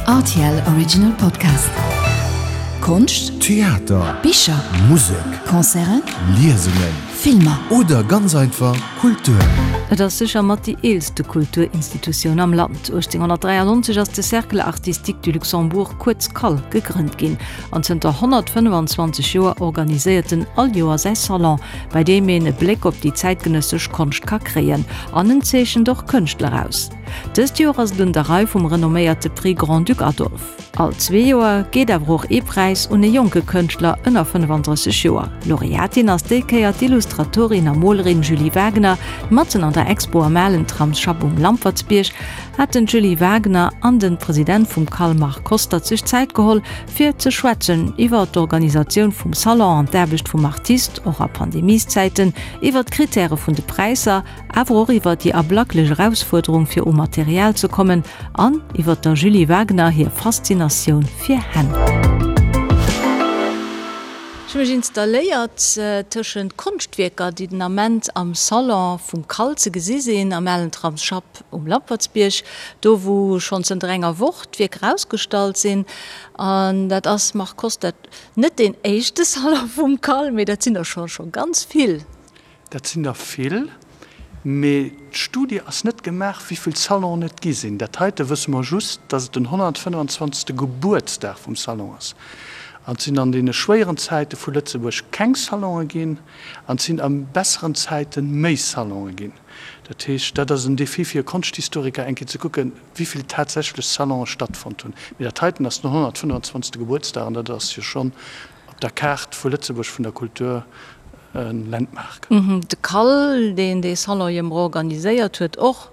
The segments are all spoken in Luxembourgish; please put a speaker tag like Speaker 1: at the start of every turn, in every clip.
Speaker 1: Rtl Original Podcast. Konscht,
Speaker 2: Theater,
Speaker 1: Bicher,
Speaker 2: Musek,
Speaker 1: Concerten,
Speaker 2: Liesungen,
Speaker 1: Filmer.
Speaker 2: Oder ganz einfach Kultur.
Speaker 3: Et ass sécher mat déi eelste Kulturinstitutioun am Land. 1893 ass de Cercle Artistique du Luxembourg, kuerz CAL, gegrënnt ginn an zënter 125 Joer organiséiert en all Joer säi Salon, bei deem een e Bléck op déi zäitgenëssesch Konscht ka kréien. An en zeechent och Kënschtler aus. Dëst Joer ass et un der Rei vum renomméierte Prix Grand-Duc Adolphe. All zwee Joer geet awer och ee Präis un e jonke Kënschtler ënner 35 Joer. Laureatin ass déi Kéier d'Illustratorin a Molerin Julie Wagener. Matzen an der Expo am alen Tramsschapp um Lampertsbierg haten d'Julie Wagener an den President vum CAL Marc Hostert sech Zäit geholl, fir ze schwätzen iwwer d'Organisatioun vum Salon an d'Aarbecht vum Artist, och a Pandemieszäiten, iwwer d'Krittäre vun de Präisser, awer och iwwer déi ablacklech Erausfuerderung fir u Material ze kommen an iwwer der Julie Wagener hir Faszinatioun fir Hänn. Ech hu mech installéiert tëschent Konschtwierker, déi den Ament am Salon vum CAL ze gesi sinn, am alen Tramsschapp um Lampertsbierg, do wou schonn zënter enger Woch d'Wierker ausgestallt sinn. An dat ass, Marc Kostert, net deen éischte Salon vum CAL, mee dat sinn der scho scho ganz vill.
Speaker 4: Dat sinn der vill, mee d'Studie ass net gemaach, wéi vill Salonen et gi sinn. Dat heite wësse mer just, dass et den 125. Gebuertsdag vum Salon ass. An et sinn an deene schwéieren Zäite vu Lëtzebuerg keng Salonë ginn an et sinn a besseren Zäite méi Salonë ginn. Dat heescht, dat ass en Défi fir e Konschthistoriker, eng Kéier ze kucken, wéi vill tatsächlech Salonë stattfonnt hunn. Mee dat heiten ass den 125. Gebuertsdag an dat ass jo schonn op der Kaart vu Lëtzebuerg vun der Kultur e Landmark.
Speaker 3: De CAL, deen dee Salon jo emol organiséiert huet, och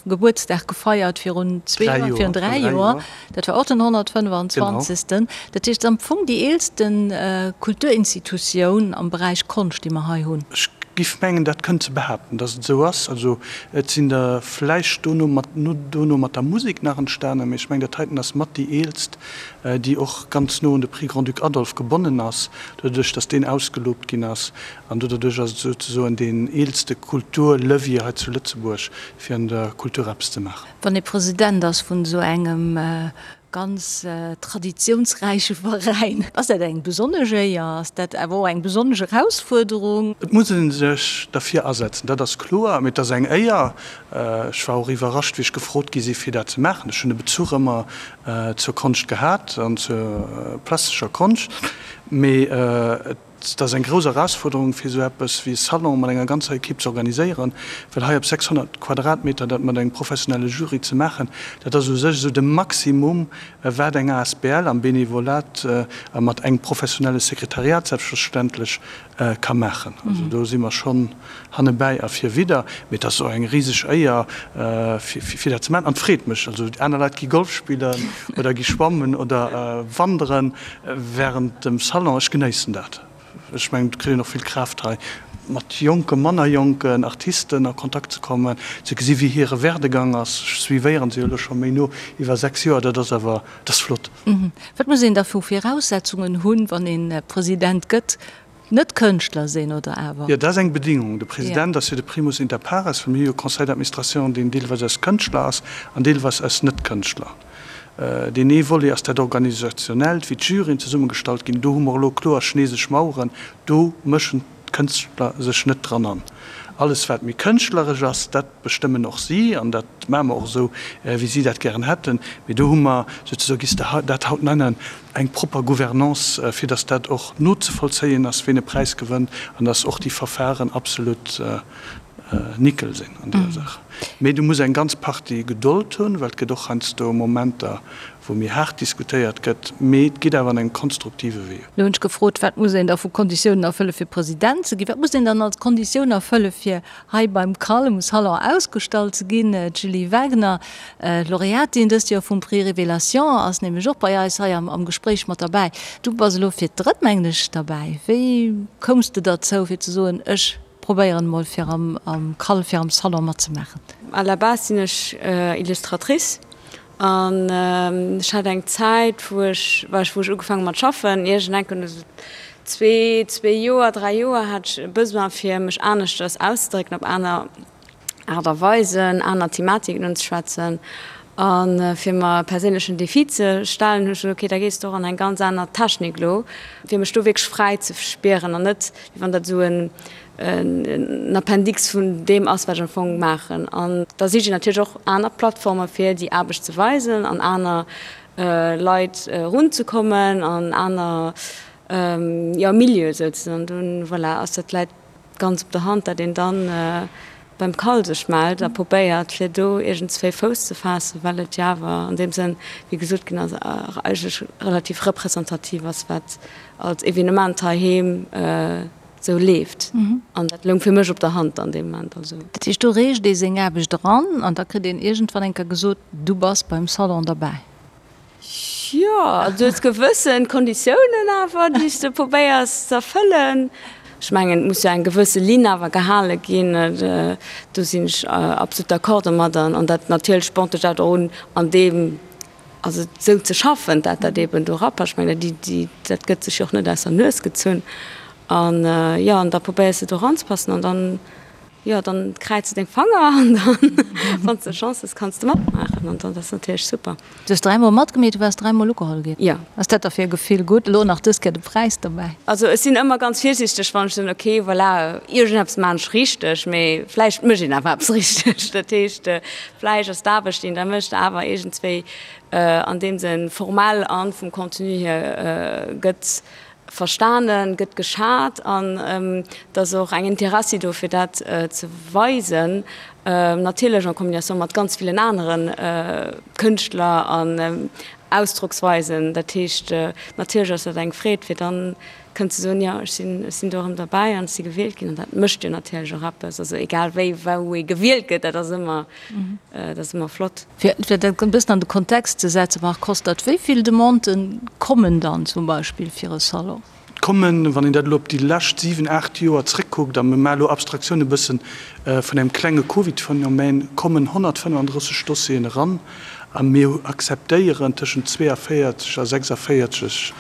Speaker 3: Gebuertsdag gefeiert virun zwee Joer, virun dräi Joer, dat war och den 125. Dat heescht, et ass am Fong déi eelste Kulturinstitutioun am Beräich Konscht, déi mer hei hunn.
Speaker 4: Ech giff mengen, dat kënnt ze behaapten, datt et esou ass. Also et sinn der vläicht dono mat, dono mat der Musek nach entstanen, mee ech mengen, dat heiten ass mat déi eelst déi och ganz no un de Prix Grand-Duc Adolphe gebonnen ass, doduerch datt deen ausgelobt ginn ass. An doduerch ass et souzesoen deen eelste Kulturlevier hei zu Lëtzebuerg, fir an der Kultur eppes ze maachen.
Speaker 3: Wann ee President ass vun esou engem ganz traditiounsräiche Veräin, ass dat eng besonnesch Éier? Ass dat awer och eng besonnesch Erausfuerderung?
Speaker 4: Et muss ee sech derfir asetzen, dat ass kloer, mee et ass eng Éier. Ech war och iwwerrascht, wéi ech gefrot gi si fir dat ze maachen. Ech hunn e Bezuch ëmmer zur Konscht gehat an zur plastescher Konscht, mee et ass eng grouss Erausfuerderung fir esou eppes wéi e Salon mat enger ganzer Equipe ze organiséieren, well hei op 600 Quadratmeter dat mat engem professionelle Jury ze maachen, dat ass u sech esou de Maximum wat eng asbl am Benevolat a mat engem professionelle Sekretariat selbstverständlech ka maachen. Also do si mer schonn hannebäi a virwidder. Mee et ass och eng riseg Éier, fir dat ze maachen. An et freet mech. Also aner Leit gi Golf spillen oder gi schwammen oder wanderen wärend dem Salon. Ech genéissen dat. Ech mengen, et kritt een och vill Kraaft hei, mat jonke, manner jonken Artisten a Kontakt ze kommen, ze gesi wéi hire Werdegang ass. Ech suivéieren se jo elo scho méi no iwwer 6 Joer. Dat ass awer, dat ass flott.
Speaker 3: Wat muss een da vu Viraussetzungen hunn, wann een President gëtt? Net Kënschtler sinn, oder awer?
Speaker 4: Jo, dat ass eng Bedingung. De President ass jo de primus inter pares, well mir hu jo e Conseil d'administration, deen deelweis aus Kënschtler ass an deelweis aus Net-Kënschtler. Deen ee Volet ass dat Organisationellt, wéi d'Juryen zesummegestallt ginn. Do hu mer elo kloer chinesesch Maueren, do mëschen d'Kënschtler sech net dran an. Alles wat méi kënschtleresch ass, dat bestëmmen och si, an dat maache mer och esou, wéi si dat gären hätten. Mee do hu mer souzesoe, giss de dat haut nennen, eng propper Gouvernance, fir datt dat och nozevollzéien ass, ween e Präis gewënnt, an datt och déi Verfahren absolut nickel sinn an deeër Saach. Mee du muss eng ganz Partie Gedold hunn, well et gëtt och heiansdo Momenter, wou méi haart diskutéiert gëtt, mee et geet awer an engem konstruktive Wee.
Speaker 3: Lo hunn ech gefrot, wat muss een da vu Konditiounen erfëlle fir President ze ginn? Wat muss een dann als Konditioun erfëlle fir hei beim CAL um Salon ausgestallt ze ginn. D'Julie Wagner, Laureatin dëst Joer vum Prix Révélation, ass nämlech och bei eis hei am Gespréich mat derbäi. Du bass elo fir d'drëtt, mengen ech, derbäi. Wéi koums de derzou, fir ze soen, ech probéieren emol fir am CAL, fir am Salon matzemaachen?
Speaker 5: À la base sinn ech Illustratrice An ech hat eng Zäit, wou ech, wou ech ugefaange mat schaffen, iergendeng esou zwee, zwee Joer, dräi Joer, hat ech e Besoin fir mech aneschters auszedrécken, op aner Aart a Weisen, aner Thematiken unzeschwätzen. A fir mer e perséinlechen Defi ze stellen, hunn ech gesot, ok, da gees de och an eng ganz aner Technik elo, fir mech do wierklech fräi ze spieren an net, wéi wann dat esou en Appendix vun deem ass, wat ech am Fong maachen. An da sicht een natierlech och aner Plattforme fir déi Aarbecht ze weisen an aner Leit erunzekommen an aner, jo, Milieue souzesoen. An dunn, voilà, ass dat läit ganz op der Hand, dat een dann beim CAL sech mellt a probéiert, fir do iergendswéi Fouss ze faassen, well et jo awer an deem Sënn, wéi gesot ginn ass, eigentlech relativ representativ ass, wat als Evenement heiheem esou leeft. An dat loung fir mech op der Hand an deem Moment. Also.
Speaker 3: Dat heescht, do reecht ee seng Aarbecht eran an da kritt een iergendwann eng Kéier gesot, du bass beim Salon derbäi.
Speaker 5: Jo, also du hues gewëssen Konditiounen awer, déi s de probéiers ze erfëllen. Ech mengen, et muss jo eng gewësse Linn awer gehale ginn, do sinn ech absolut d'accord domadder. An dat natierlech spornt dech dat och un, an deem, also esou ze schaffen, dat dat eeben do erapasst. Ech mengen, déi, déi, dat gëtt sech jo och net aus der Nues gezunn. An jo, an da probéiers de do eranzepassen an dann Jo, dann kräiz de deng Fanger an dann, wann s de Chance hues, kanns de matmaachen an dann ass natierlech super.
Speaker 3: Du hues dräimol matgemeet, du waars dräimol ugeholl ginn.
Speaker 5: Jo.
Speaker 3: Ass dat da fir e Gefill gutt? Elo nach dës Kéier de Präis dobäi.
Speaker 5: Also ech sinn ëmmer ganz virsiichteg, wann ech soen, ok, voilà, iergendeppes maan ech richteg, mee vläicht mécht een awer eppes richteg. Dat heescht, vläicht ass d'Aarbecht, déi een da mécht, awer iergendswéi an deem Sënn formell an vum Contenu hier gëtt Verstanen, gëtt geschat an et ass och eng Interessi do fir dat ze weisen, natierlech en combination mat ganz villen anere Kënschtler an Ausdrocksweisen. Dat heescht, natierlech ass dat eng Freed fir dann kënnen ze soen, jo ech sinn, ech sinn do erëm derbäi an ech si gewielt ginn an dat mécht jo natierlech och eppes. Also egal wéi wou ee gewielt gëtt, dat ass ëmmer, dat ass ëmmer flott.
Speaker 3: Fir dat e bëssen an de Kontext ze setzen, Marc Hostert, wéi vill Demandë kommen dann zum Beispill fir e Salon?
Speaker 4: Et kommen, wann een dat elo op déi lescht 7, 8 Joer zréckkuckt, a mir maache elo Abstraktioun e bëssen vun engem klenge Covid-Phänomen, kommen 135 Dossieren eran a mir akzeptéieren tëschent 42 a 46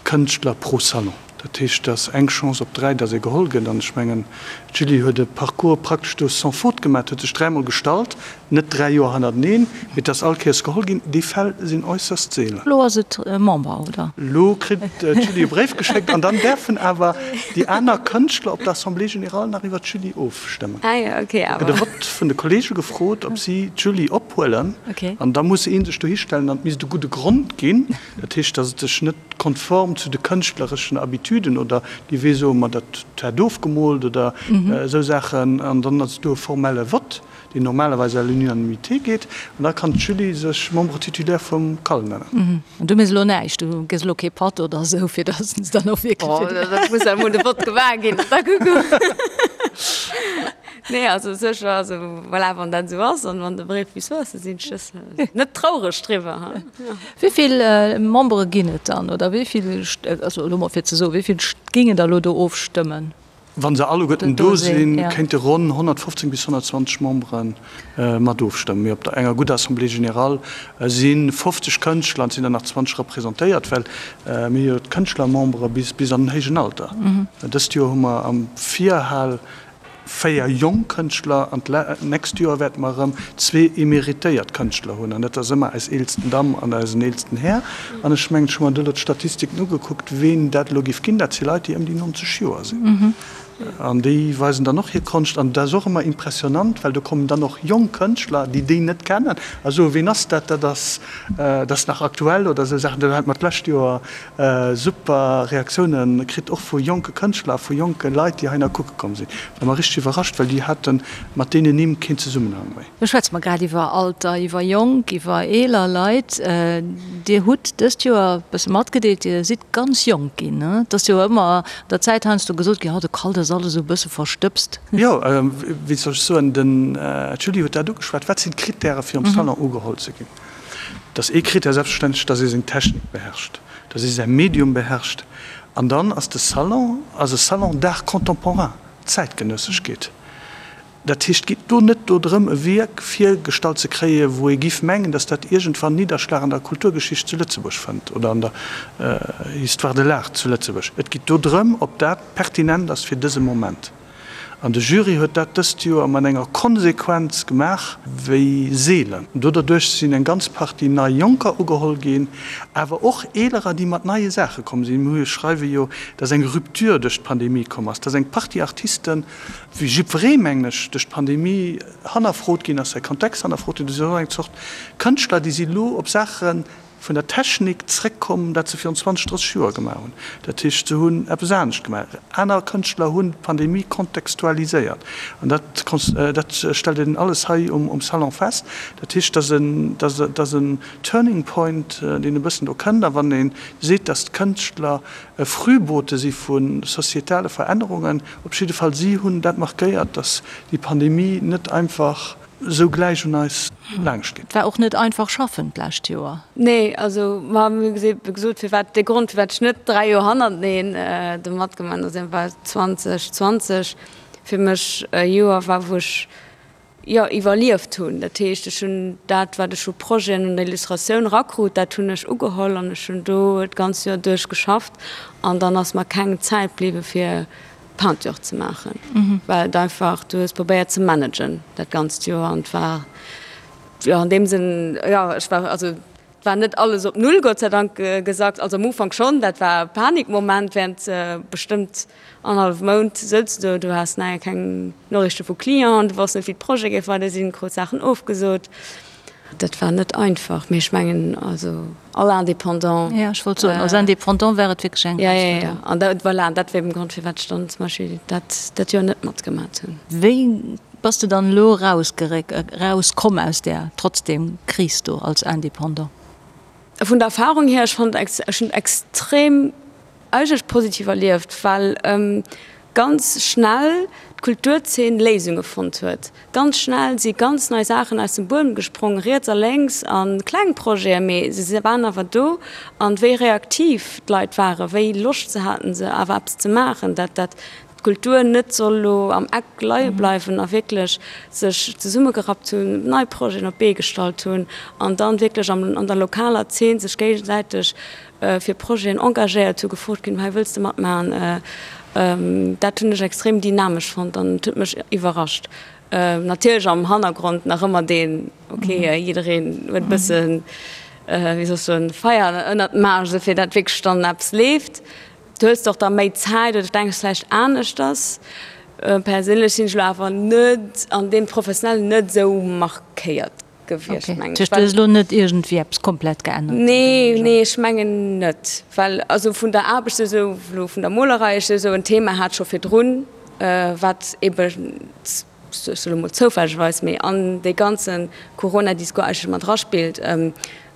Speaker 4: Kënschtler pro Salon. Dat heescht, et ass eng Chance op 3, datt ee geholl gëtt. An ech mengen, d'Julie huet e Parcours praktesch do sans faute gemaach, huet sech dräimol gestallt, net 3 Joer hannerteneen, mee et ass all Kéiers geholl ginn. Déi Fäll sinn äusserst seelen.
Speaker 3: Elo ass et Member, oder?
Speaker 4: Elo kritt d'Julie e Bréif geschéckt an dann däerfen awer déi aner Kënschtler op der Assemblée générale nach iwwer d'Julie ofstëmmen.
Speaker 5: Ah jo, okay,
Speaker 4: awer. Da gëtt e Vott vun de Kollege gefrot, ob si d'Julie ophuelen. An da muss ee sech dohistellen an et misst e gudde Grond ginn. Dat heescht, datt et sech net konform zu de kënschtlereschen Habituden oder déi wéi soe mer dat hätt ofgemoolt oder esou Saachen, an dann ass do e formelle Vott, deen normalerweis à l'unanimité geet, an da kann d'Julie sech Membre titulaire vum CAL nennen.
Speaker 3: An du méchs elo näischt, du gëss elo kee Patt oder esou, fir datt se dann och wierklech.
Speaker 5: Oh, dat muss emol de Vott gemaach ginn, da kucke mer. Nee, also sécher, also voilà, wann dat esou ass an wann de Bréif bis do ass, da sinn ech net traureg driwwer.
Speaker 3: Wéi vill Membere ginn et dann, oder wéi vill, also elo mol fir ze soen, wéi vill géingen da elo do ofstëmmen?
Speaker 4: Wa se alleguerten do sinn, kéinte ronn 115 bis 120 Membere mat ofstëmmen. Mee op der enger gudder Assemblée générale si 50 Kënschtler an et sinn der nach 20 representéiert, well mir hu jo d'Kënschtlermembere bis an den héijen Alter. Dëst Joer hu mer am Virhal 4 jonk Kënschtler an d'nächst Joer wäerte mer erëm zwee emeritéiert Kënschtler hunn an dat ass ëmmer eis eelsten Damm an eisen eelsten Här. An ech mengen, ech hu mer do elo d'Statistiken ugekuckt, ween dat elo géif ginn, dat si Leit, déi ëm déi 90 Joer sinn an déi weisen dann och hir Konscht an dat ass och ëmmer impressionant, well do kommen dann och jonk Kënschtler, déi déi net kennen a soen, ween ass dat, dat ass, dat ass nach aktuell oder esou Saachen. Do hate mer d'lescht Joer Super Reaktiounen kritt, och vu jonke Kënschtler a vu jonke Leit, déi heihinner kucke komm sinn. War mer richteg iwwerrascht, well déi hate mat deenen Nimm keen Zesummenhang méi.
Speaker 3: Lo schwätze mer grad iwwer Alter, iwwer jonk, iwwer eeler Leit. Dir hutt dëst Joer e bësse matgedeelt, Dir sidd ganz jonk ginn. Et ass jo ëmmer an der Zäit heiansdo gesot ginn, oh de Kalt ass alles esou e bësse verstëbst.
Speaker 4: Jo, wéi soll ech soen, den Julie huet dat ugeschwat. Wat sinn d'Krittäre fir am Salon ugeholl ze ginn? Et ass ee Critère selbstverständlech, dass ee seng Technik beherrscht, dass ee säi Medium beherrscht. An dann ass de Salon ass e Salon d'art contemporain, Zäitgenësseschkeet. Dat heescht, et geet do net dodrëm, e Wierk virgestallt ze kréien, wou ee giff mengen, dass dat iergendwann Nidderschlag an der Kulturgeschicht zu Lëtzebuerg fënnt oder an der Histoire de l'art zu Lëtzebuerg. Et geet dodrëm, ob dat pertinent ass fir dëse Moment. An de Jury huet dat dëst Joer mat enger Konsequenz gemaach wéi seelen. Do derduerch sinn eng ganz Partie nei Jonker ugeholl ginn, awer och Eelerer, déi mat neie Saache komm sinn. Mir schreiwe jo, dass eng Rupture duerch d'Pandemie komm ass, dass eng Partie Artisten, wéi jiddweree mengen ech, duerch d'Pandemie hannerfrot ginn ass, säi Kontext hannerfrot ginn. Do sinn och eng Zort Kënschtler, déi si lo op Saache vun der Technik zréckkomm, dat se virun 20, 30 Joer gemaach hunn. Dat heescht, se hunn eppes anescht gemaach. Aner Kënschtler hunn d'Pandemie kontextualiséiert. An dat, dat stellt een alles hei um Salon fest. Dat heescht, dass en, dass en Turning Point, deen e bëssen do kënnt. A wann ee seet, dass d'Kënschtler e Frühbote si vu societale Verännerungen, op jidde Fall si hunn dat markéiert, dass déi Pandemie net einfach esou gläich un eis laangscht geet.
Speaker 3: Et war och net einfach schaffen d'lescht Joer.
Speaker 5: Nee, also ma mir hu gesot, firwat, de Grond firwat ech net 3 Joer hannerteneen do matgemaach hunn, ass eben well 2020 fir mech e Joer war, wou ech, jo, iwwerlieft hunn. Dat heescht, ech hunn dat, wat ech u Projeten un der Illustratioun erakrut, dat hunn ech ugeholl an ech hunn do d'ganz Joer duerch geschafft an dann ass mer keng Zäit bliwwe fir Peinture ze maachen, well et einfach, du hues probéiert ze managen dat ganzt Joer an et war jo an deem Sënn, jo ech war, also et war net alles op Null Gott sei Dank gesackt, also am Ufank schonn, dat war e Panikmoment während bestëmmt annerhallef Mount souz du do, du has naja keng Noriichte vu Clienten, du wosst net wéi d'Projete géif weider sinn, krut Saachen ofgesot. Dat war net einfach, mee ech mengen also all Indépendant.
Speaker 3: Jo, ech wollt soen, als Indépendant war et wierklech eng
Speaker 5: Erausfuerderung. Jo, jo, jo. An dat, voilà, an dat war eben de Grond, firwat ech dann zum Beispill dat dat Joer net matgemat hunn.
Speaker 3: Wéi bass de dann elo erausgeréck, erauskomm aus där trotzdem Kris do als Indépendant?
Speaker 5: Vun der Erfahrung hier, ech fand, ech hunn extrem eigentlech positiv erlieft, well ganz schnell d'Kulturzeen Léisunge fonnt huet. Ganz schnell si ganz nei Saachen aus dem Buedem gesprong, riets a lénks, a kleng Projeten, mee se waren awer do. An wéi reaktiv d'Leit waren, wéi Loscht se haten, se awer eppes ze maachen, dat dat d'Kultur net soll elo am Eck leie bleiwen a wierklech sech zesummegerappt hunn, nei Projeten op d'Bee gestallt hunn an dann wierklech an der lokaler Zeen sech géigesäiteg fir Projeten engagéiert hunn, gefrot ginn, hei wëlls de matmaachen. Dat hunn ech extrem dynamesch fonnt an et huet mech iwwerrascht. Natierlech am Hannergrond nach ëmmer deen, ok, jiddereen huet e bëssen, wéi soll ech soen, Feier ënnert dem Aarsch, esou fir dat wierklech dann eppes leeft. Du hues och da méi Zäit oder denks vläicht aneschters. Perséinlech sinn ech elo awer net an deem Professionellen net esou markéiert gewiescht,
Speaker 3: mengen ech. Du hues elo net iergendwéi eppes komplett geännert?
Speaker 5: Nee, nee, ech mengen net. Well also vun der Aarbecht esou, elo vun der Molerei, ech esou en Thema hat scho virdrun, wat ebe, ech soe elo mol zoufällegerweis, mee an dee ganze Corona-Discours eigentlech mat eraspillt,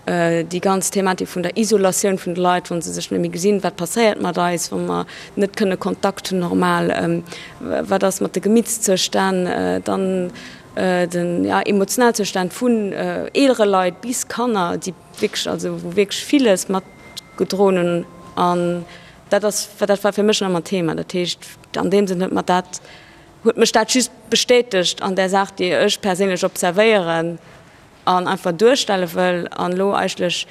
Speaker 5: Déi ganz Thematik vun der Isolatioun vun de Leit, wa se sech net méi gesinn, wat passéiert mat eis, wa mer net kënne Kontakt hunn normal, wat ass mat de Gemittszustänn, dann den Emotionalzustand vun eelere Leit bis Kanner, déi wierklech, also wou wierklech villes mat gedroen hunn. An dat ass, dat war fir mech ëmmer Thema. Dat heescht, an deem Sënn huet mer dat, huet mech dat just bestätegt an där Saach, déi ech perséinlech observéieren. an einfach duerstelle wëll an elo eigentlech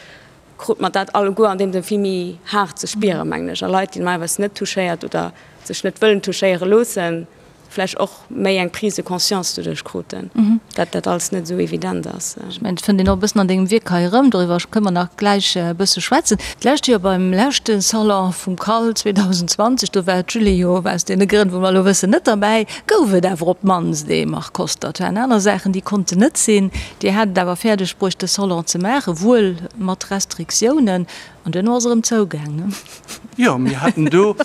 Speaker 5: krut mer dat alleguer an deem Sënn vill méi haart ze spieren, mengen ech, a Leit, déi normalerweis net touchéiert oder sech net wëllen touchéiere loossen, vläicht och méi eng Prise de conscience doduerch kruten, dat dat alles net esou evident ass.
Speaker 3: Ech mengen, et fënnt een och e bëssen an dengem Wierk hei erëm, doriwwer kënne mer nach gläich e bësse schwätzen. D'lescht Joer beim leschte Salon vum CAL 2020, do war d'Julie jo aus deene Grënn, wou mer elo wëssen, net derbäi. Gouf et awer op d'mannst ee Marc Koster. Et waren aner Saachen, déi konnten net sinn. Dir hat et awer fäerdeg bruecht, de Salon ze maachen, wuel mat Restriktiounen. An duerno ass e erëm zougaang, ne?
Speaker 4: Jo, mir haten do,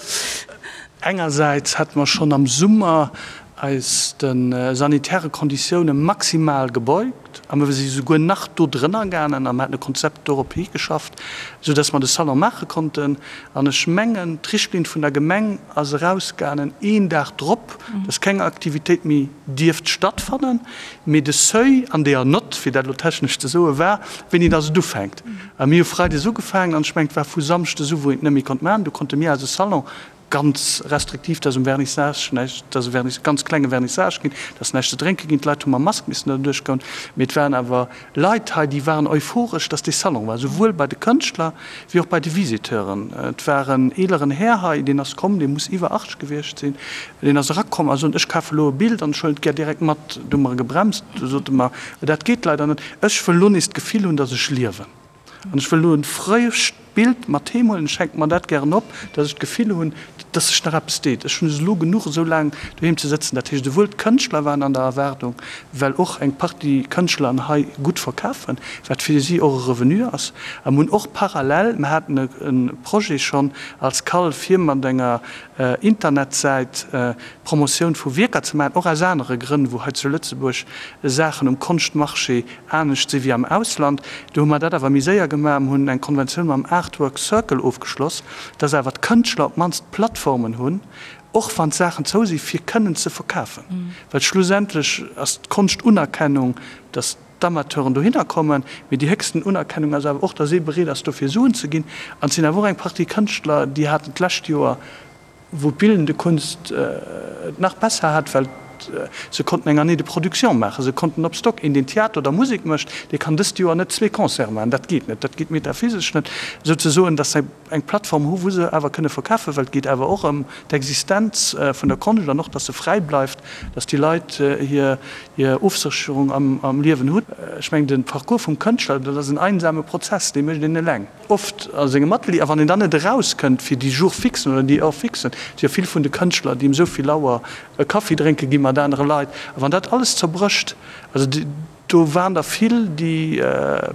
Speaker 4: engersäits hate mer schonn am Summer eis de sanitäre Konditioune maximal gebeugt a mer si souguer nach do drënner gaangen a mer haten e Konzept dorop higeschafft, soudass mer de Salon maache konnten. An ech mengen, d'Richtlinn vun der Gemeng ass erausgaangen een Dag drop, dass keng Aktivitéit méi dierft stattfannen, mee de Seuil an deeër Nott, fir dat elo technesch ze soen, war, wéini dass et ufänkt. A mir hu freides ugefaangen an ech mengen, et war vu samschdes u, wou een et net méi konnt maachen. Du konnte mir eise Salon. Ganz restriktiv, dass um Vernissage näischt, dass e Vernis, ganz klenge Vernissage ginn, dass näischt ze drénke ginn. D'Leit hu mam Mask missen derduerch goen. Mee et waren awer Leit hei, déi waren euphoresch, dass dee Salon war, souwuel bei de Kënschtler wéi och bei de Visiteuren. Et war en eeleren Här hei, deen ass komm, dee muss iwwer 80 gewiescht sinn, deen ass erakomm a sot, Ech kafe lo e Bild an ech huelen et gär direkt mat. Du hu mer e gebremst, du sot e mer, Dat geet leider net, ech wëll lo nees d'Gefill hunn, dass ech liewen. An ech wëll elo e frëscht Bild mat heem huelen. Ech hänke mer dat gären op, dass ech d'Gefill hunn, dass sech nach eppes deet. Ech hunn es elo genuch, esou laang doheem ze sëtzen. Dat heescht, esouwuel d'Kënschtler waren an der Erwaardung, well och eng Partie Kënschtler an hei gutt verkafen, wat fir si och e Revenu ass. A mir hunn och parallel, mir haten e Projet schonn als CAL, fir mat enger Internetsäit d'Promotioun vu Wierker ze maachen, och aus anere Grënn, wou hei zu Lëtzebuerg Saachen um Konschtmarché anescht si wéi am Ausland. Do hu mer dat awer méi séier gemaach. Mer hunn eng Konventioun mam Artwork Circle ofgeschloss, dass awer d'Kënschtler op d'mannst Plattformen hunn, och wann d'Saachen zou si fir kënnen ze verkafen. Well schlussendlech ass d'Konschtunerkennung, dass d'Amateuren dohinner kommen, mee déi héchsten Unerkennung ass awer och, dass ee bereet ass dofir Suen ze ginn. An et sinn awer och eng Partie Kënschtler, déi haten d'lescht Joer, wou d'bildende Kunst et nach besser hat, well se konnten eng Année de production maachen, se konnten op Stock. Een, deen Theater oder Musek mécht, dee kann dëst Joer net zwee Concerte maachen, dat geet net, dat geet metaphysesch net, souzesoen, dass se eng Plattform hu wou se awer kënne verkafen, well et geet awer och ëm d'Existenz vun der Konscht an och, dass se fräi bleift, dass déi Leit hir Ofsécherung am Liewen hunn. Ech mengen, de Parcours vum Kënschtler, dat ass en einsame Prozess, dee mécht een eleng. Oft a sengem Atelier, a wann een dann net erauskënnt fir déi Jours fixen oder déi Heures fixen, et si jo vill vun de Kënschtler, déi ëm esou vill Auer e Kaffi drénke gi mat anere Leit, a wann dat alles zerbrécht, also do waren der vill, déi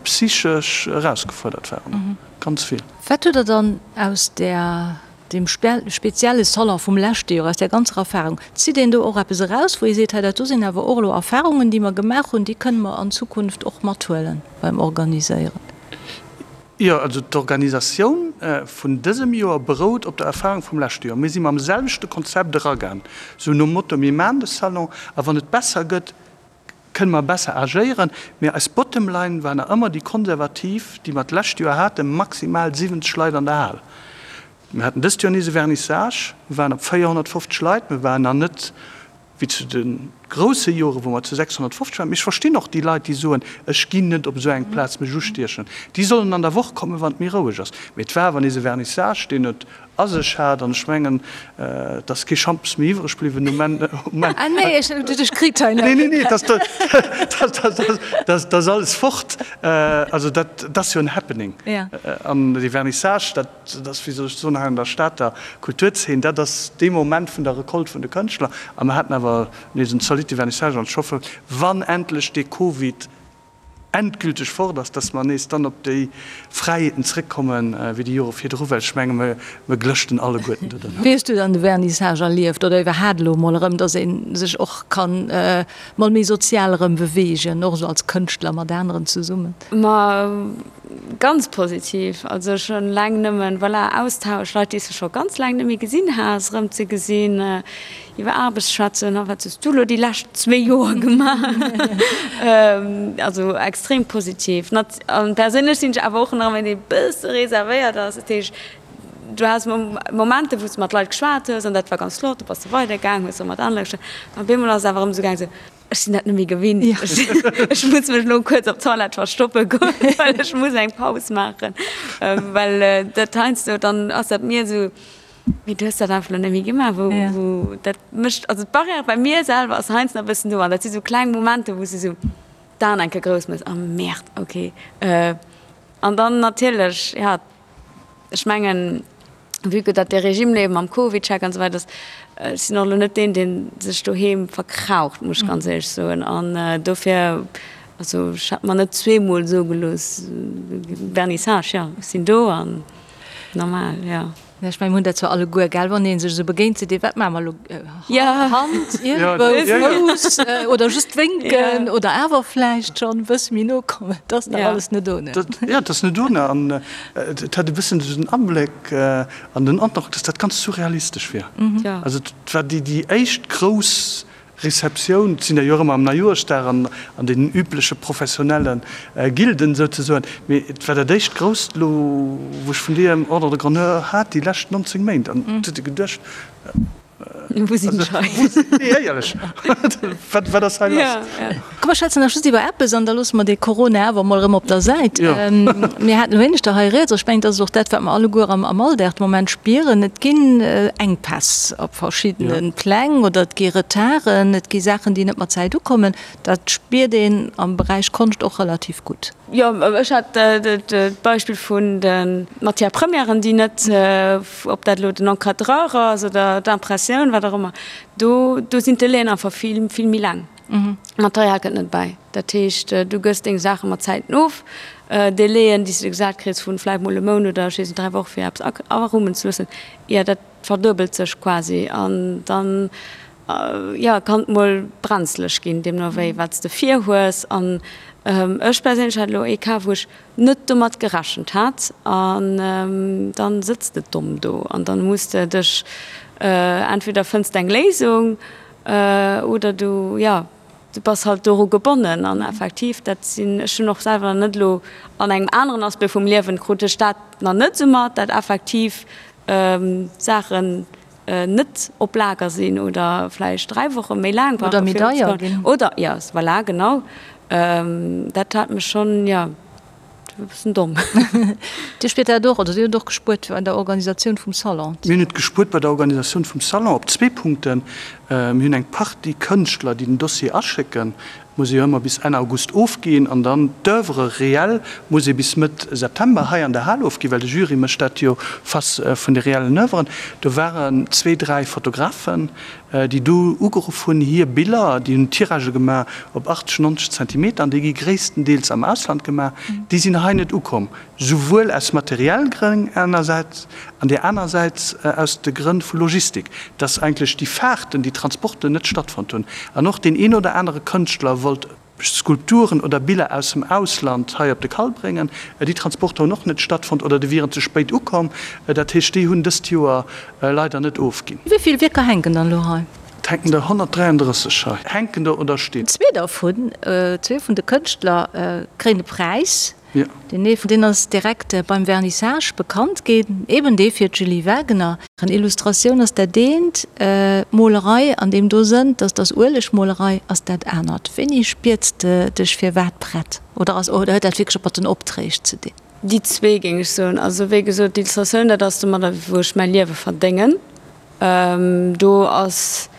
Speaker 4: psychesch erausgefuerdert waren, ganz vill.
Speaker 3: Wat hutt Der dann aus där, deem spezielle Salon vum leschte Joer, aus där ganzer Erfahrung, zitt een do och eppes eraus, wou ee seet, hei dat do sinn awer och elo Erfahrungen, déi mer gemaach hunn, déi kënne mer an Zukunft och mathuelen beim Organiséieren?
Speaker 4: Jo, also d'Organisatioun vun dësem Joer berout op der Erfahrung vum leschte Joer. Mir si mam selwechte Konzept eragaan, sou nom Motto, mir maachen de Salon a wann et besser gëtt, kënne mer besser agéieren. Mee eis Bottom line war nach ëmmer déi konservativ, déi mer d'lescht Joer haten, maximal 70 Leit an der Hal. Mir haten dëst Joer nees e Vernissage, mir waren op 450 Leit, mir waren nach net wéi zu de grousse Joren, wou mer zu 650 waren. Mee ech verstinn och déi Leit, déi soen, ech ginn net op esou eng Plaz mech ustiechen. Déi sollen an der Woch kommen, wann et méi roueg ass. Mee et war awer nees e Vernissage, deen et a sech hat. An ech mengen, et ass kee Schampes méi iwwreg bliwwen um Enn.
Speaker 3: Ah nee, ech hunn dech kritt hei.
Speaker 4: Nee, nee, nee, dat ass alles fort. Also dat ass jo en Happening. An dee Vernissage, dat. Dat ass, wéi soll ech soen, hei an der Stater Kulturzeen, dat ass dee Moment vun der Recolte vun de Kënschtler. A mer haten awer nees en zolitte Vernissage an ech hoffe, wann endlech dee Covid endgülteg fort ass, dass mer nees dann op déi Fräiheeten zrëckkommen, wéi déi Jore virdru, well ech menge mer glëschten alleguerten do
Speaker 3: drënner. Wéi hues du dann de Vernissage erlieft oder iwwerhaat elo emol erëm, dass ee sech och kann mol méi sozial erëm beweegen, och esou als Kënschtler mat aneren zesummen?
Speaker 5: Ma Ganz positiv, also schon laang nëmmen, voilà, Austausch, Leit déi s de scho ganz laang net méi gesinn has, erëm ze gesinn, iwwer Aarbecht schwätzen, a wat hues du elo déi lescht zwee Joer gemaach? Also extrem positiv. Nat an perséinlech sinn ech awer och nach ëmmer een dee bësse reservéiert ass, dat heescht du has Momenter wou s de mat Leit geschwat hues an dat war ganz flott, du bass du weidergaang, hues erëm mat anere Leit geschwat, an op eemol ass et awer erëm esou gaang esou, Ech sinn dat net méi gewinnt. Ech muss mech elo kuerz op d'Toilette verstoppe goen, well ech muss eng Paus maachen. Well dat heiansdo, dann ass dat mir esou, mee du hues dat einfach elo net méi gemaach, wou, wou dat mécht, also d'Barrière bei mir selwer ass heiansdo nach e bëssen do an dat si sou kleng Momenter, wou s de sou d'Aen eng Kéier grouss méchs, oh Merde, okay. An dann natierlech, ja, ech mengen, vue que dat dee Regime elo mam CovidCheck an esou weider ass, ech sinn och elo net deen, dee sech doheem verkraucht, muss ech ganz éierlech soen. An dofir, also ech hätt mer net zweemol soe gelooss, Vernissage, jo, ech sinn do an normal, jo.
Speaker 3: Ech mengen, mir hunn dat zwar alleguer, gell, wann ee sech esou begéint, seet ee, wat maache mer elo, Hand iergendwou, Fouss oder just wénken oder awer vläicht schonn e bësse méi no kommen. Dat ass nach alles net ohne.
Speaker 4: Jo, dat ass net ohne. An et hat e bëssen esou den Abléck an den Androck, dass dat ganz surrealistesch wier. Also et war déi éischt grouss. Receptioun, et sinn der jo och ëmmer am Neijoerschdag an an deenen übleche professionelle Gilden souzesoen, mee et war dat éischt grousst elo, wou ech vun deem Ordre de grandeur hat déi lescht 19 Méint an et huet ee geduecht,
Speaker 5: Wou sinn ech hei?
Speaker 4: Nee, éierlech, wat, wat ass hei lass?
Speaker 3: Komm, mer schwätzen nach just iwwer eppes an da loosse mer dee Corona awer emol erëm op der Säit. Mir haten elo éineschter hei rieds, ech mengen, dat ass och dat, wat mer alleguer am Alldag de Moment spieren, Et ginn Enkpäss op verschiddene Pläng oder et gi Retarden, et gi Saachen, déi net mat Zäit ukommen. Dat spiert een am Beräich Konscht och relativ gutt.
Speaker 5: Jo, ech hat d'Beispill vun de Matières premièren, déi net, ob dat elo den Encadreur ass oder d'Impressioun, wat och ëmmer, do do sinn d'Delaien einfach vill, vill méi laang. D'Material kënnt net bäi. Dat heescht, du gëss deng Saache mat Zäiten of. Delaien, déi s de gesat kriss vu vläicht mol e Mount oder ech weess net, 3 Woche fir eppes arummen ze loossen, jo, dat verduebelt sech quasi an dann jo, kann et mol brenzeleg ginn, deemno wéi wat s de vir hues. An ech perséinlech hat elo ee Cas, wou ech net domat gerechent hat an dann sëtz de domm do an dann muss de dech, entweder fënns de eng Léisung oder du, jo, du bass halt doru gebonnen. An effektiv, dat sinn, ech hunn och selwer nach net elo an engem aneren Aspect vum Liewen krut ech dat nach net esou mat, dat effektiv Saachen net op Lager sinn oder vläicht 3 Woche méi laang
Speaker 3: brauchen. Oder méi deier ginn.
Speaker 5: Oder, jo, voilà, genau. Dat hat mech schonn, jo, e bëssen domm.
Speaker 3: Dir spiert dat och, oder Dir hutt och gespuert bei der Organisatioun vum Salon?
Speaker 4: Mir hunn et gespuert bei der Organisatioun vum Salon op zwee Punkten. Mir hunn eng Partie Kënschtler, déi den Dossier aschécken. Muss ee jo ëmmer bis Enn August ofginn an dann d'Oeuvre réelle muss ee bis Mëtt September hei an der Hal ofginn, well de Jury mécht dat jo face vun de reellen Oeuvren. Do waren zwee, dräi Fotografen, déi do ugeruff hunn, hir Biller, déi hunn Tiragë gemaach op 80, 90 Zentimeter an déi gi gréisstendeels am Ausland gemaach, déi sinn hei net ukomm. Souwuel aus materiell Grënn engersäits an där anersäits aus de Grënn vu Logistik, dass eigentlech déi Fahrten, déi Transporten net stattfonnt hunn. An och deen een oder anere Kënschtler wollt Skulpturen oder Biller aus dem Ausland hei op de Kall bréngen. Déi Transporter hunn och net stattfonnt oder déi wieren ze spéit ukomm. Dat heescht, déi hunn dëst Joer leider net ofginn.
Speaker 3: Wéi vill Wierker hänken dann elo hei?
Speaker 4: Et hänken der 133 hei. Hänken der oder stinn.
Speaker 3: Zwee dervun, zwee vun de Kënschtler kréien e Präis. Deen ee vun deenen ass direkt beim Vernissage bekannt ginn, eben dee fir d'Julie Wagener. Illustratioun ass dat eent, Molerei an deem do Sënn, dass dass Uelegmolerei ass dat anert. Wéini spierts de dech firwat prett oder ass oder huet dat wierklech och mat den Opträg ze dinn?
Speaker 5: Déi zwee géing ech soen. Also wéi gesot, d'Illustratioun, dat ass domadder wou ech mäi Liewe verdéngen. Do ass,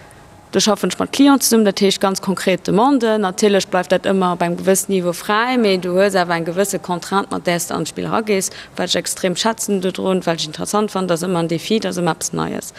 Speaker 5: do schaffen ech mat Clienten zesummen, dat heescht ganz konkret Demanden. Natierlech bleift dat ëmmer op engem gewëssen Niveau fräi, mee du hues awer eng gewësse Contrainte, mat där s de an d'Spill eragees, wat ech extrem schätzen dodrun, wat ech interessant fannen, dat ass ëmmer en Défi, dat ass ëmmer eppes Neies.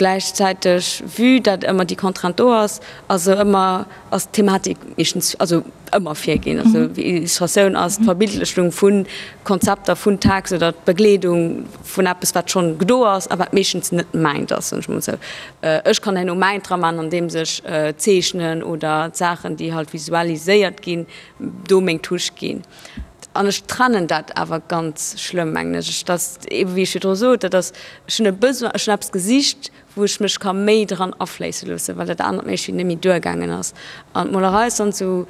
Speaker 5: Gläichzäiteg, vue dat ëmmer déi Contrainte do ass, ass se ëmmer, ass d'Thematik meeschtens, also ëmmer virginn. Also Illustratioun ass d'Verbildlechung vu Konzepter, vun Text oder d'Begleedung vun eppes, wat schonn do ass a wat meeschtens net mäint ass, soen ech mol esou. Ech kann herno mäint dra maachen, andeems ech zeechnen oder d'Saachen, déi halt visualiséiert ginn, do meng Touche ginn. An ech trennen dat awer ganz schlëmm, mengen ech. Ech, dat eebe wéi ech virdru sot, dat ass, ech hunn e Besoin, ech hunn eppes gesicht, wou ech mech ka méi dran afléisse loossen, well dat anert méi net méi duergaangen ass. An d'Molerei ass dann esou,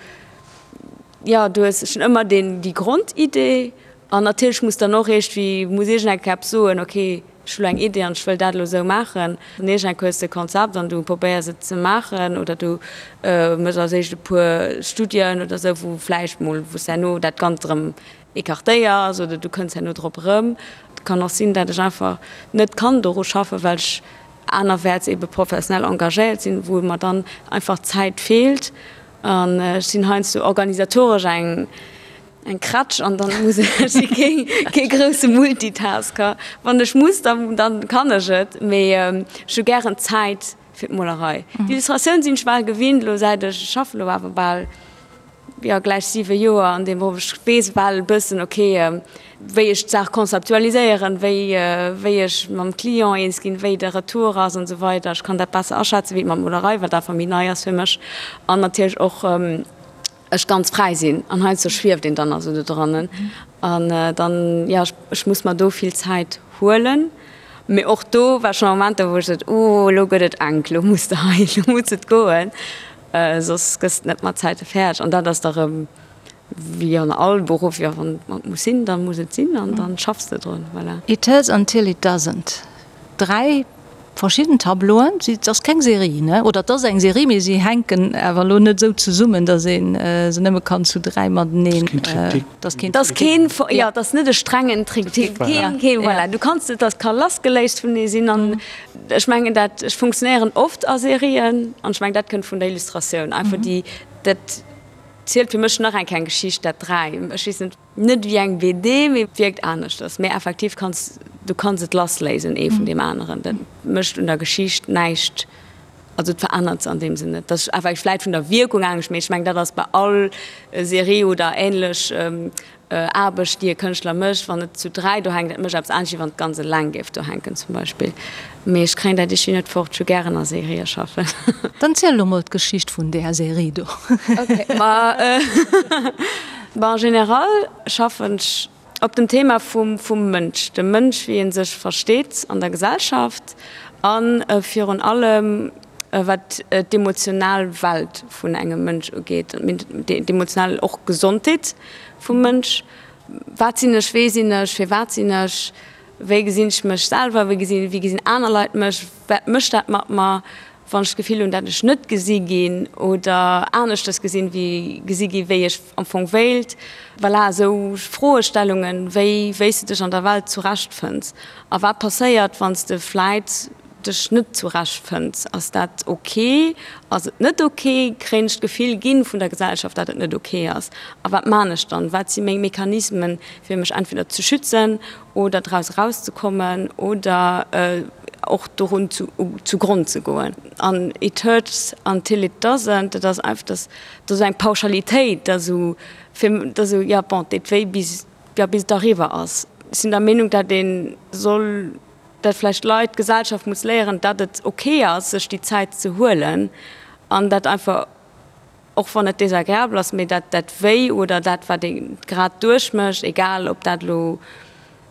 Speaker 5: jo, du hues schonn ëmmer deen, déi Grondidee an natierlech muss dann och iergendwéi, muss iergend eng Kéier eppes soen, okay, ech hu lo eng Idee an ech wëll dat elo esou maachen. An iergend eng Kéier hues de e Konzept an du probéiers et ze maachen oder du méchs als éischt e puer Studien oder esou, wou vläicht mol, wou s de herno dat Ganzt erëm écartéiers oder du kënns herno drop erëm. Et kann och sinn, dat ech einfach net kann doru schaffen, well ech anerwäerts ebe professionell engagéiert sinn, wou mer dann einfach d'Zäit feelt. An ech sinn heiansdo organisatoresch eng eng Krätsch an dann muss ech, ech si kee kee grousse Multitasker. Wann ech muss, dann dann kann ech et, mee ech hu gären Zäit fir d'Molerei. D'Illustratioun sinn ech bal gewinnt elo säit ech, ech schaffen elo awer bal jo gläich 7 Joer an deem Beruff, ech weess bal e bëssen ok wéi ech d'Saach konzeptualiséieren, wéi wéi ech mam Client eens ginn, wéi de Retour ass an esou weider. Ech kann dat besser aschätzen wéi mat Molerei, wat einfach méi nei ass fir mech an natierlech och ech ganz fräi sinn an heiansdo schwieft een dann also do drannen an dann jo ech muss mer do vill Zäit huelen. Mee och do war schonn Momenter wou ech sot, oh elo gëtt et enk, elo muss de hei, elo muss et goen. Soss gëss de net mat Zäite fäerdeg. An dat ass da rëm wéi an all Beruff, jo, wann et muss sinn, da muss et sinn an dann schaffs de drun. Voilà.
Speaker 3: It hurts until it doesn't. 3 verschidden Tableauen, et ass keng Serie, ne? Oder et ass eng Serie, mee si hänken awer elo net esou zesummen, datt ee se nëmme kann zu 3 mateneen.
Speaker 5: Et ass keen Triptyque. Jo, et ass net e strengen Triptyque. Keen, keen, voilà. Du kanns et, dat ka lassgeléist vunenee sinn an ech mengen dat, ech funktionéieren oft a Serien an ech mengen dat kënnt vun der Illustratioun einfach déi, dat zielt fir mech nach eng kleng Geschicht, dat 3, ech weess net. Net wéi eng BD, mee wierkt aneschters. Mee effektiv kanns du kanns et lassléisen ee vun deem aneren. Dat mécht un der Geschicht näischt, also et verännert se an deem Sënn net. Dat ass effektiv vläit vun der Wierkung anescht, mee ech mengen dat ass bei all Serie oder änlech Aarbecht déi e Kënschtler mécht, wann et zu 3 do hänkt, dat mécht eppes anescht wéi wann et ganz eleng géif do hänken zum Beispill. Mee ech kréien dat iergendwéi net fort, ech hu gären a Serië schaffen.
Speaker 3: Dann ziel elo mol d'Geschicht vun där Serie do.
Speaker 5: Ok, ma bon, en général schaffen ech op dem Thema vum vum Mënsch, dem Mënsch wéi en sech versteet an der Gesellschaft a virun allem wat d'emotional Welt vun engem Mënsch ugeet, d'emotional och Gesondheet vum Mënsch. Wat sinn ech, wee sinn ech, firwat sinn ech? Wéi gesinn ech mech selwer? Wéi gesinn, wéi gesinn aner Leit mech? Wat mécht dat mat mer, wann ech d'Gefill hunn, dat ech net gesi ginn oder aneschters gesinn, wéi gesi gi wéi ech am Fong wéilt? Voilà, esou Froestellungen, wéi wéi s de dech an der Welt zurechtfënns a wat passéiert, wann s de vläit dech net zurechtfënns. Ass dat ok? Ass et net ok? Kréien ech d'Gefill ginn vun der Gesellschaft, dat et net ok ass? A wat man ech dann? Wat si meng Mechanismen, fir mech entweder ze schützen oder draus erauszekommen oder och dorun zu zu Gronn ze goen? An it hurts until it doesn't, dat ass einfach, dat ass eng Pauschalitéit, dat esou fir, dat esou, jo bon, et deet wéi bis, jo bis et eriwwer ass. Ech sinn der Meenung, dat ee soll dat vläicht d'Leit, d'Gesellschaft muss léieren, dat et ok ass, sech déi Zäit ze huelen an dat einfach, och wann et désagréabel ass, mee dat dat Wéi oder dat, wat ee grad duerchmécht, egal ob dat elo,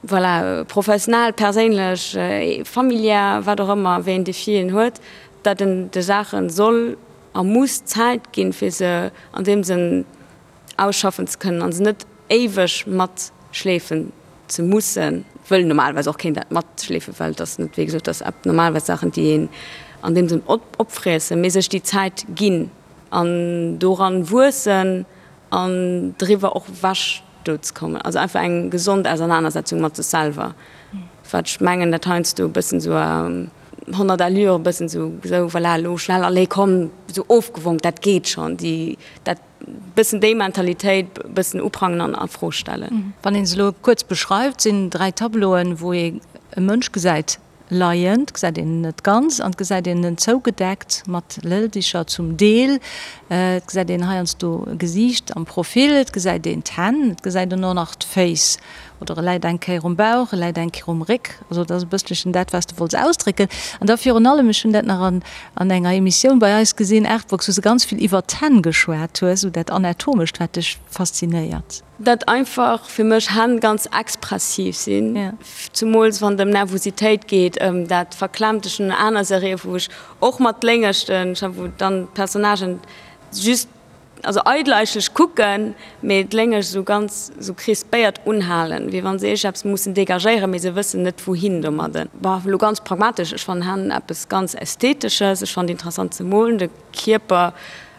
Speaker 5: voilà, professionell, perséinlech, familiär, wat och ëmmer, wéi een Défi een huet, dat en de Saache soll a muss Zäit ginn, fir se an deem Sënn ausschaffen ze kënnen an se net éiweg matschleefen ze mussen, wëll normalerweis och keen dat matschleefen, well et ass net, wéi gesot, et ass normalerweis Saachen, déi een an deem Sënn opfriessen, mee sech déi Zäit ginn an doran wuessen an driwwer och ewech do ze kommen. Also einfach eng gesond Ausernanersetzung mat sech selwer, wat ech mengen, dat heiansdo e bëssen esou a 100 Allure e bëssen esou, esou voilà, elo schnell, allez komm, esou ofgewonk, dat geet schonn, déi, dat. Bëssen déi Mentalitéit bëssen uprangen an a Fro stellen.
Speaker 3: Wann een se elo kuerz beschreift, sinn 3 Tableauen, wou ee e Mënsch gesäit leien, et gesäit een en net ganz an et gesäit een en zougedeckt mat Lëldicher zum Deel, et gesäit een heiansdo e Gesiicht am Profil, et gesäit een d'Hänn, et gesäit een och nach d'Féiss oder e läit eng Kéier um Bauch, e läit eng Kéier um Réck. Also dat ass e bësselchen dat, wat s de wollts ausdrécken. An da virun allem, ech hunn dat nach an an enger Emissioun bei eis gesinn, Artbox, wou s de ganz vill iwwert d'Hänn geschwat hues, esou dat Anatomescht, wat dech faszinéiert.
Speaker 5: Dat einfach fir mech Hänn ganz expressiv sinn, zumools wann et ëm Nervositéit geet, ëm dat Verklemmte. Ech hunn aner Serië wou ech och mat Léngeschten, wou dann d'Personnagen just Also eidel eigentlech kucken, mee d'Léngeg esou ganz esou crispéiert unhalen, wéi wann se iergendeppes mussen dégagéieren, mee se wëssen net wouhin domadden. Bon, elo ganz pragmatesch, ech fannen Hänn eppes ganz Ästhetesches, ech fannen et interessant ze molen, de Kierper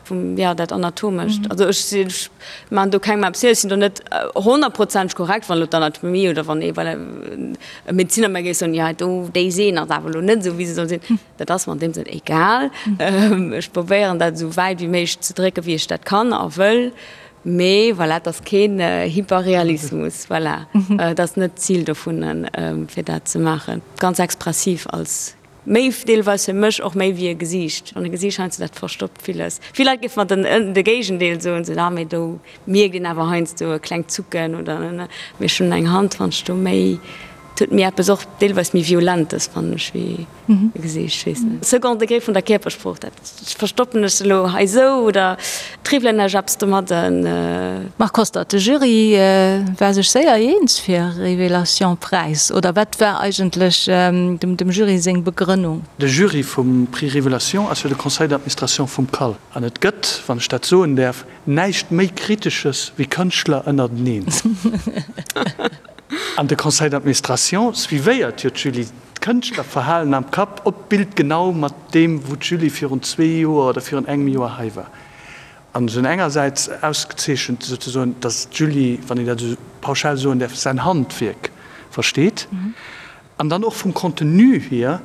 Speaker 5: vum, jo, dat Anatomescht. Also ech sinn, ech maachen do kengem eppes vir, ech sinn do net honnertprozenteg korrekt, wann elo d'Anatomie oder wann ee, voilà, e Medeziner mer géif soen, jo do, déi Sehn ass awer elo net esou wéi se soll sinn. Dat ass mer an deem Sënn egal. Ech probéieren dat esou wäit wéi méiglech ze drécken, wéi ech dat kann a wëll. Mee voilà, et ass keen Hyperrealismus. Voilà, et ass net d'Zil dovun, fir dat ze maachen. Ganz expressiv als méi deelweis fir mech och méi wéi e Gesiicht. An e Gesiicht heiansdo, dat verstoppt villes. Vill Leit géife mer den de Géigendeel soen, sou, ah mee do mierkt een awer heiansdo e klengt Zucken oder. Mee ech hunn eng Hand, wann ech do méi. Et huet méi eppes och deelweis méi Violentes, fannen ech, wéi e Gesiicht. Ech weess net. Second Degré vun der Kierpersprooch, dat verstoppen ech elo hei esou oder triwwelen ech eppes domadden.
Speaker 3: Marc Hostert, De Jury war sech séier eens fir Révélation Präis, oder wat war eigentlech dem Jury seng Begrënnung?
Speaker 4: De Jury vum Prix Révélation ass jo de Conseil d'administration vum CAL. An et gëtt, wann ech dat soen däerf, näischt méi Kritesches wéi Kënschtler ënnerteneen. An de Conseil d'administration suivéiert jo d'Julie, d'Kënschtlerverhalen am Kapp op d'Bild genau mat deem, wou d'Julie virun zwee Joer oder virun engem Joer hei war. An se hunn engersäits ausgezeechent, souzesoen, datt d'Julie, wann een dat esou pauschal soen däerf, säin Handwierk versteet. An dann och vum Contenu hier,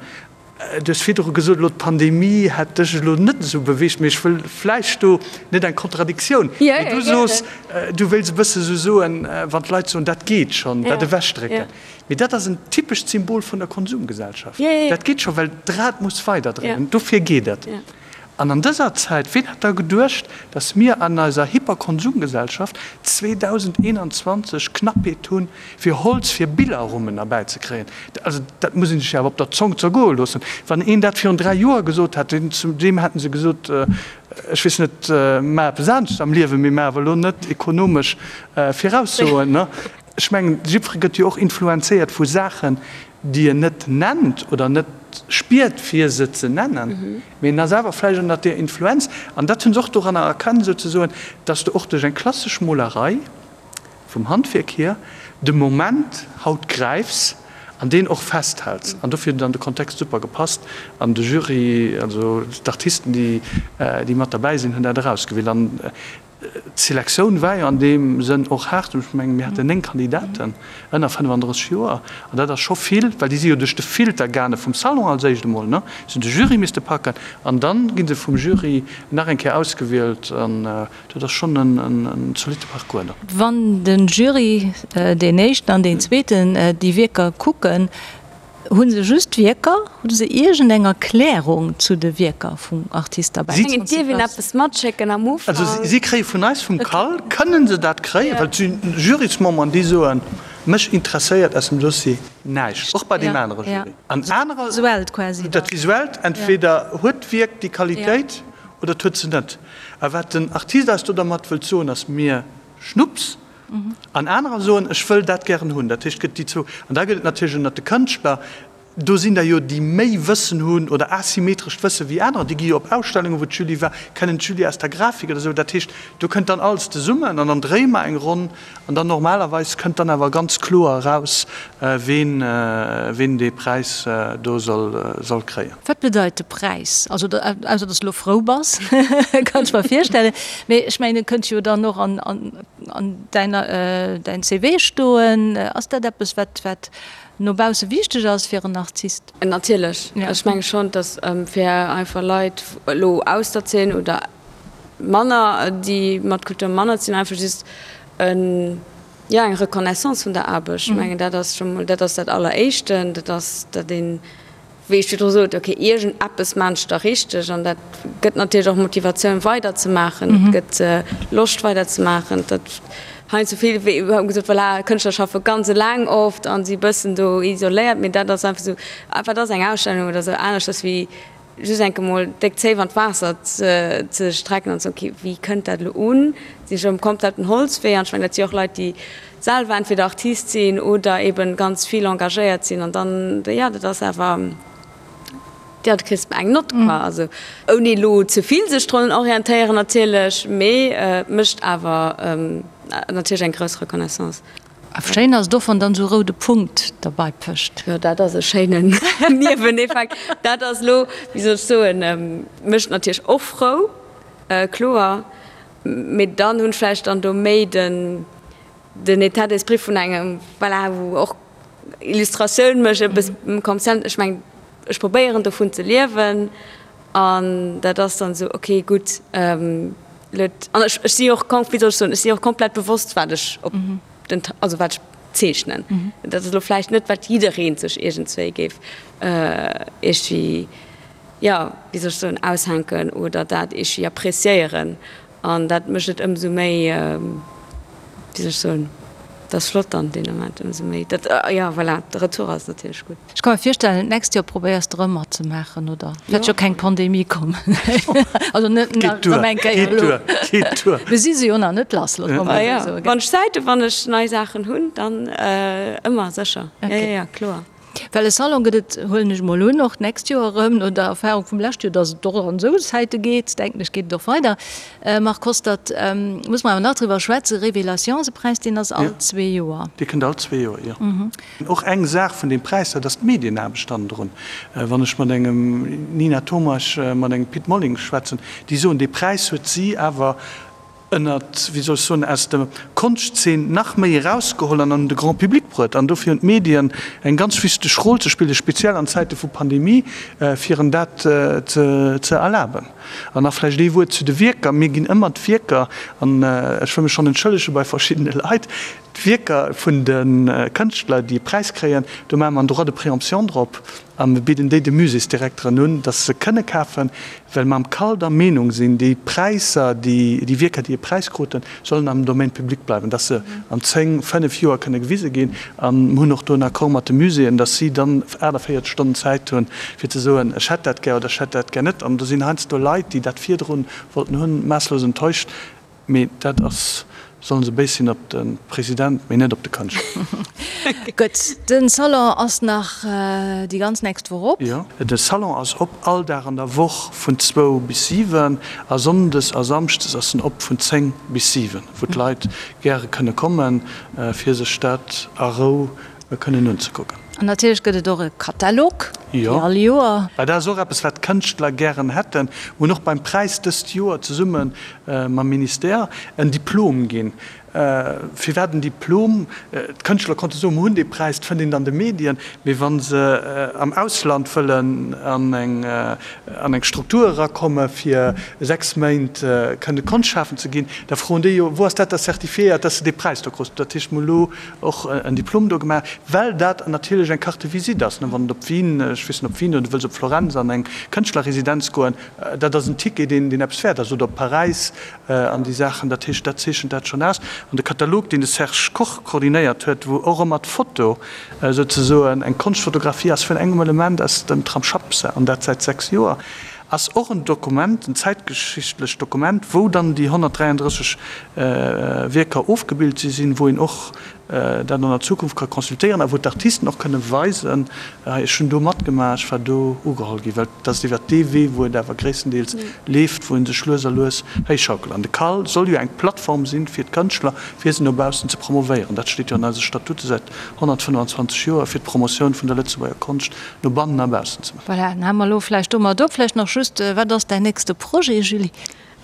Speaker 4: Du hues virdru gesot, elo d'Pandemie hätt dech elo net esou beweegt, mee ech wëll vläicht do net eng Kontradiktioun, mee du soos, du wéilts e bësse sou soen, wann d'Leit soen, dat geet schonn, dat ewechdrécken. Mee dat ass en typescht Symbol vun der Konsumgesellschaft. Dat geet scho, well d'Rad muss weiderdréinen, dofir geet et. An an dëser Zäit, ween hätt da geduecht, dass mir an eiser Hyperkonsumgesellschaft 2021 Knappheet hunn, fir Holz fir Billerrummen erbäizekréien? Also dat muss ee sech jo awer op der Zong zergoe loossen. Wann een dat virun 3 Joer gesot hätt, zu deem hätte se gesot, ech weess net, maach eppes anescht am Liewen, mee maach awer elo net ekonomesch Viraussoen. Ech mengen, jiddweree gëtt jo och influenzéiert vu Saachen, déi en net nennt oder net spiert, fir se ze nennen, mee en ass awer vläicht ënnert där Influenz. An dat hunn se och doranner erkannt, souzesoen, dass de och duerch eng klassesch Molerei vum Handwierk hier de Moment haut gräifs an deen och festhäls. An dofir huet dann de Kontext super gepasst an de Jury, also d'Artisten, déi mat derbäi sinn, hunn dat erausgewielt. An D'Selektioun war jo an deem Sënn och haart. Ech mengen, mir haten 9 Kandidaten ënner 35 Joer an dat ass scho vill, well déi si jo duerch de Filter gaange vum Salon als éischt emol, ne, se hunn de Jury misste packen an dann gi se vum Jury nach eng Kéier ausgewielt an dat ass schonn en zolitte Parcours dann.
Speaker 3: Wann de Jury, deen éischten an deen zweeten, déi Wierker kucken, Hu se just d'Wierker? Hu se iergend eng Erklärung zu de Wierker vum Artist derbäi?
Speaker 5: Ech mengen, et dierf een eppes matschécken am Ufank.
Speaker 4: Also si kréie vun eis, vum CAL, kënnen se dat kréien, well et si Jurysmemberen, déi soen, mech interesséiert aus dem Dossier näischt, och bei deem anere Jury. An anerer.
Speaker 3: Visuellt quasi.
Speaker 4: Dat Visuellt, entweder huet d'Wierk déi Qualitéit oder et huet se net. A wat den Artist eis do dermat wëllt soen, ass mir Schnupps. An anerer soen, ech wëll dat gären hunn. Dat heescht, et gëtt déi zwou. An da gëtt et natierlech ënnert de Kënschtler, do sinn der jo, déi méi Wëssen hunn oder asymmetrescht Wësse wéi anerer. Déi gi jo op Ausstellungen, wou d'Julie war, kennen d'Julie aus der Grafik oder esou. Dat heescht, do kënnt dann alles zesummen an dann dréie mer eng Ronn an dann normalerweis kënnt dann awer ganz kloer eraus, ween, ween dee Präis do soll, soll kréien.
Speaker 3: Wat bedeit de Präis? Also, ausser dass de elo frou bass, kann ech mer virstellen. Mee ech mengen, e kënnt jo dann och an, an, an däiner, däin CV stoen. Ass dat eppes, wat, wat no bausse wichteg ass fir en Artist?
Speaker 5: Natierlech. Ech menge schonn, dass fir einfach Leit elo aus der Zeen oder manner, déi mat Kultur manner ze dinn, einfach just en, jo, eng Reconnaissance vun der Aarbecht. Ech mengen, dat ass scho mol, dat ass dat Alleréischten, dat ass, datt een, wéi ech virdru sot, ok, iergendeppes maan ech da richteg an dat gëtt natierlech och Motivatioun weider ze maachen, et gëtt Loscht weider ze maachen. Dat heiansdo vill wéi iwwerhaupt gesot, voilà, Kënschtler schaffe ganz eleng oft an si bëssen do isoléiert, mee dat ass einfach esou, wat ass eng Ausstellung oder esou aneschters wéi just enke mol déck Zéif an d'Waasser ze strecken an ze soen, ok, wéi kënnt dat elo un, sinn ech um kompletten Holzwee an ech mengen dat si och Leit déi selwer entweder Artist sinn oder eben ganz vill engagéiert sinn an dann, jo, dat ass awer, jo, du kriss eng Nott quoi. Also ouni elo ze vill sech drun orientéieren natierlech, mee et mécht awer natierlech eng grouss Reconnaissance.
Speaker 3: A schéin ass et och, wann dann esou e roude Punkt derbei pëscht.
Speaker 5: Jo, dat ass e schéinen Nieweneffekt. Dat ass elo, wéi soll ech soen, mécht natierlech och frou, kloer, mee dann hunn ech vläicht dann do méi den, den État d'esprit vun engem, voilà, wou och Illustratioun mécht, eppes kommerziell, ech mengen, ech probéieren dovun ze liewen an dat ass dann esou, okay, gutt, elo, an ech, ech si och, wéi soll ech soen, ech si och komplett bewosst, wat ech op den, also wat ech zeechnen. Dat ass elo vläicht net, wat jidderee sech iergendswéi géif iergendwéi, jo, wéi soll ech soen, aushänken oder dat iergendwéi appréciéieren. An dat mécht et ëmsou méi, wéi soll ech soen. Dat ass flott dann deen Ament ëmsou méi. Dat, jo voilà, de Retour ass natierlech gutt.
Speaker 3: Ech ka mer virstellen, d'nächst Joer probéiers de rëm matzemaachen, oder? Wäert jo keng Pandemie kommen. Also net nach erëm eng Kéier elo.
Speaker 4: Geet duer.
Speaker 3: Mir si se jo nach net lass, loosse mer mol esou soen.
Speaker 5: Wann ech Zäit hunn, wann ech nei Saachen hunn, dann ëmmer sécher. Jo, jo, jo, kloer.
Speaker 3: Well e Salon gëtt et, huelen ech mol un, och d'nächst Joer erëm, no der Erfahrung vum leschte Joer, datt et och an esou Zäite geet, denken ech, geet et och weider. Marc Hostert, muss mer awer nach driwwer schwätzen, Révélations-Präis, deen ass all zwee Joer.
Speaker 4: Dee kënnt all zwee Joer, jo. Och eng Saach vun deem Präis, dat ass d'Medienaarbecht hannendrun. Wann ech mat engem Nina Tomasch, mat engem Pit Molling schwätzen, déi soen, dee Präis huet si awer ënnert, wéi soll ech soen, aus der Konschtzeen nach méi erausgeholl an an de Grand public bruet. An dofir hunn d'Medien eng ganz wichteg Rôle ze spillen, speziell an Zäite vu Pandemie, fir en dat ze erlaben. An nach vläicht ee Wuert zu de Wierker. Mir ginn ëmmer d'Wierker, an ech wëll mech schonn entschëllege bei verschiddene Leit, d'Wierker vun de Kënschtler, déi e Präis kréien, do maache mer en Droit de préemption drop a mir bidden déi de Muséesdirekteren un, dass se kënne kafen, well mer am Cal der Meenung sinn, déi Präisser, déi Wierker, déi e Präis kruten, sollen am Domaine public bleiwen, dass se an 10, 5 Joer kënne gewise ginn. A mir hunn och do en Accord mat de Muséeën, dass si dann 48 Stonnen Zäit hunn, fir ze soen, ech hätt dat gär oder ech hätt dat gär net. An do sinn heiansdo Leit, déi dat virdru wollten hunn, maasslos enttäuscht. Mee dat ass, sollen se béis sinn op de President, mee net op de Kënschtler.
Speaker 3: Gutt, de Salon ass nach déi ganz nächst Woch op.
Speaker 4: Jo, de Salon ass op all Dag an der Woch vun zwou bis 7 a sonndes a samschdes ass en op vun 10 bis 7, wou d'Leit gäre kënne kommen, fir sech dat a Rou kënnen unzekucken.
Speaker 3: An natierlech gëtt et och e Katalog, wéi all Joer.
Speaker 4: Well dat ass och eppes, wat d'Kënschtler gären hätten. Mir hunn och beim Präis dëst Joer zesumme mam Ministère en Diplom ginn. Firwat en Diplom? D'Kënschtler konnte soen, mir hunn dee Präis, dat fënnt een an de Medien. Mee wa se am Ausland wëllen an eng an eng Struktur erakomme fir 6 Méint kënne Konscht schafen ze ginn, da froen déi jo, wou ass dat da certifiéiert, dass de dee Präis do krus? Dat heescht, mir hu lo och en Diplom do gemaach, well dat natierlech eng Carte de visite ass, wann et op Wien, ech weess net, op Wien oder du wëlls op Florenz an eng Kënschtlerresidenz goen, dat ass en Ticket, deen deen eppes wäert ass, oder op Paräis an déi Saachen. Dat heescht, dat zeechent dat schonn aus. An de Katalog, deen de Serge Koch koordinéiert huet, wou och ëmmer d'Foto souzesoen eng Konschtfotografie ass vun engem Element aus dem Tram Schappse, an dat säit 6 Joer, ass och en Dokument, en zäitgeschichtlecht Dokument, wou dann déi 133 Wierker ofgebilt si sinn, wou een och dat an der Zukunft ka consultéieren a wou d'Artisten och kënne weisen, hei ech hunn do matgemaach, ech war do ugeholl ginn. Well et ass iwwert dee Wee, wou et awer gréisstendeels leeft, wou ee sech lues a lues héichschaukelt. An de CAL soll jo eng Plattform sinn fir d'Kënschtler, fir se no baussen ze promovéieren. Dat steet jo an eise Statute säit 125 Joer, fir d'Promotioun vun der Lëtzebuerger Konscht no bannen a baussen ze maachen.
Speaker 3: Voilà, dann hale mer elo vläicht domat op. Vläicht nach just, Wat ass däin nächste Projet, Julie?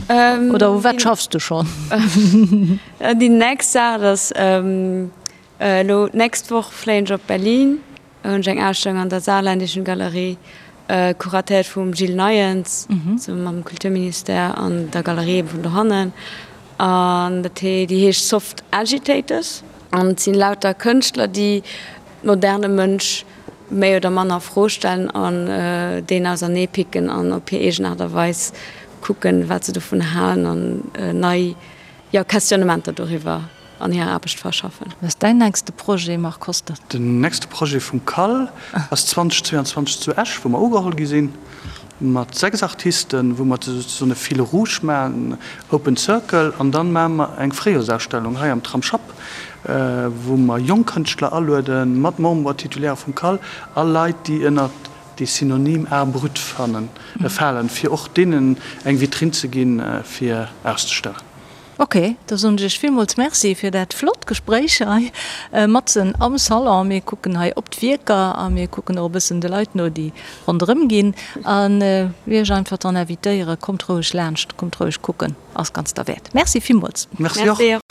Speaker 3: Oder u wat schaffs du schonn?
Speaker 5: Déi nächst Saach, dat ass elo d'nächst Woch fléien ech op Berlin, do hunn ech eng Ausstellung an der Saarländischen Galerie, kuratéiert vum Gilles Neyens, zesumme mam Kulturministère an der Galerie eben vun dohannen. An dat hee, déi heescht Soft Agitators. An et sinn lauter Kënschtler, déi moderne Mënsch méi oder manner a Fro stellen an deen ausernee picken an op hir eegen Aart a Weis kucken, wat se dovun halen an nei, jo, Questionnementer doriwwer an hirer Aarbecht verschaffen.
Speaker 3: Wat ass däin nächste Projet, Marc Hostert?
Speaker 4: Den nächste Projet vum CAL ass 2022 zu Esch, wou mer ugeholl gi sinn mat 6 Artisten, wou mer souzesoen e Fil rouge maachen, Open Circle, an dann maache mer eng Fréijoersausstellung hei am Tramsschapp, wou mer jonk Kënschtler alueden, mat Membres titulaires vum CAL a Leit, déi ënnert dee Synonym Art brut falen, fir och deenen eng Vitrinn ze ginn, fir auszestellen.
Speaker 3: Ok, da soen ech iech villmools Merci fir dat flott Gespréich hei matzen am Salon. Mir kucken hei op d'Wierker a mir kucken och e bëssen de Leit no, déi ronderëm ginn. An iech einfach dann invitéieren, kommt roueg laanscht, kommt roueg kucken, ass ganz derwäert. Merci villmools.
Speaker 4: Merci och.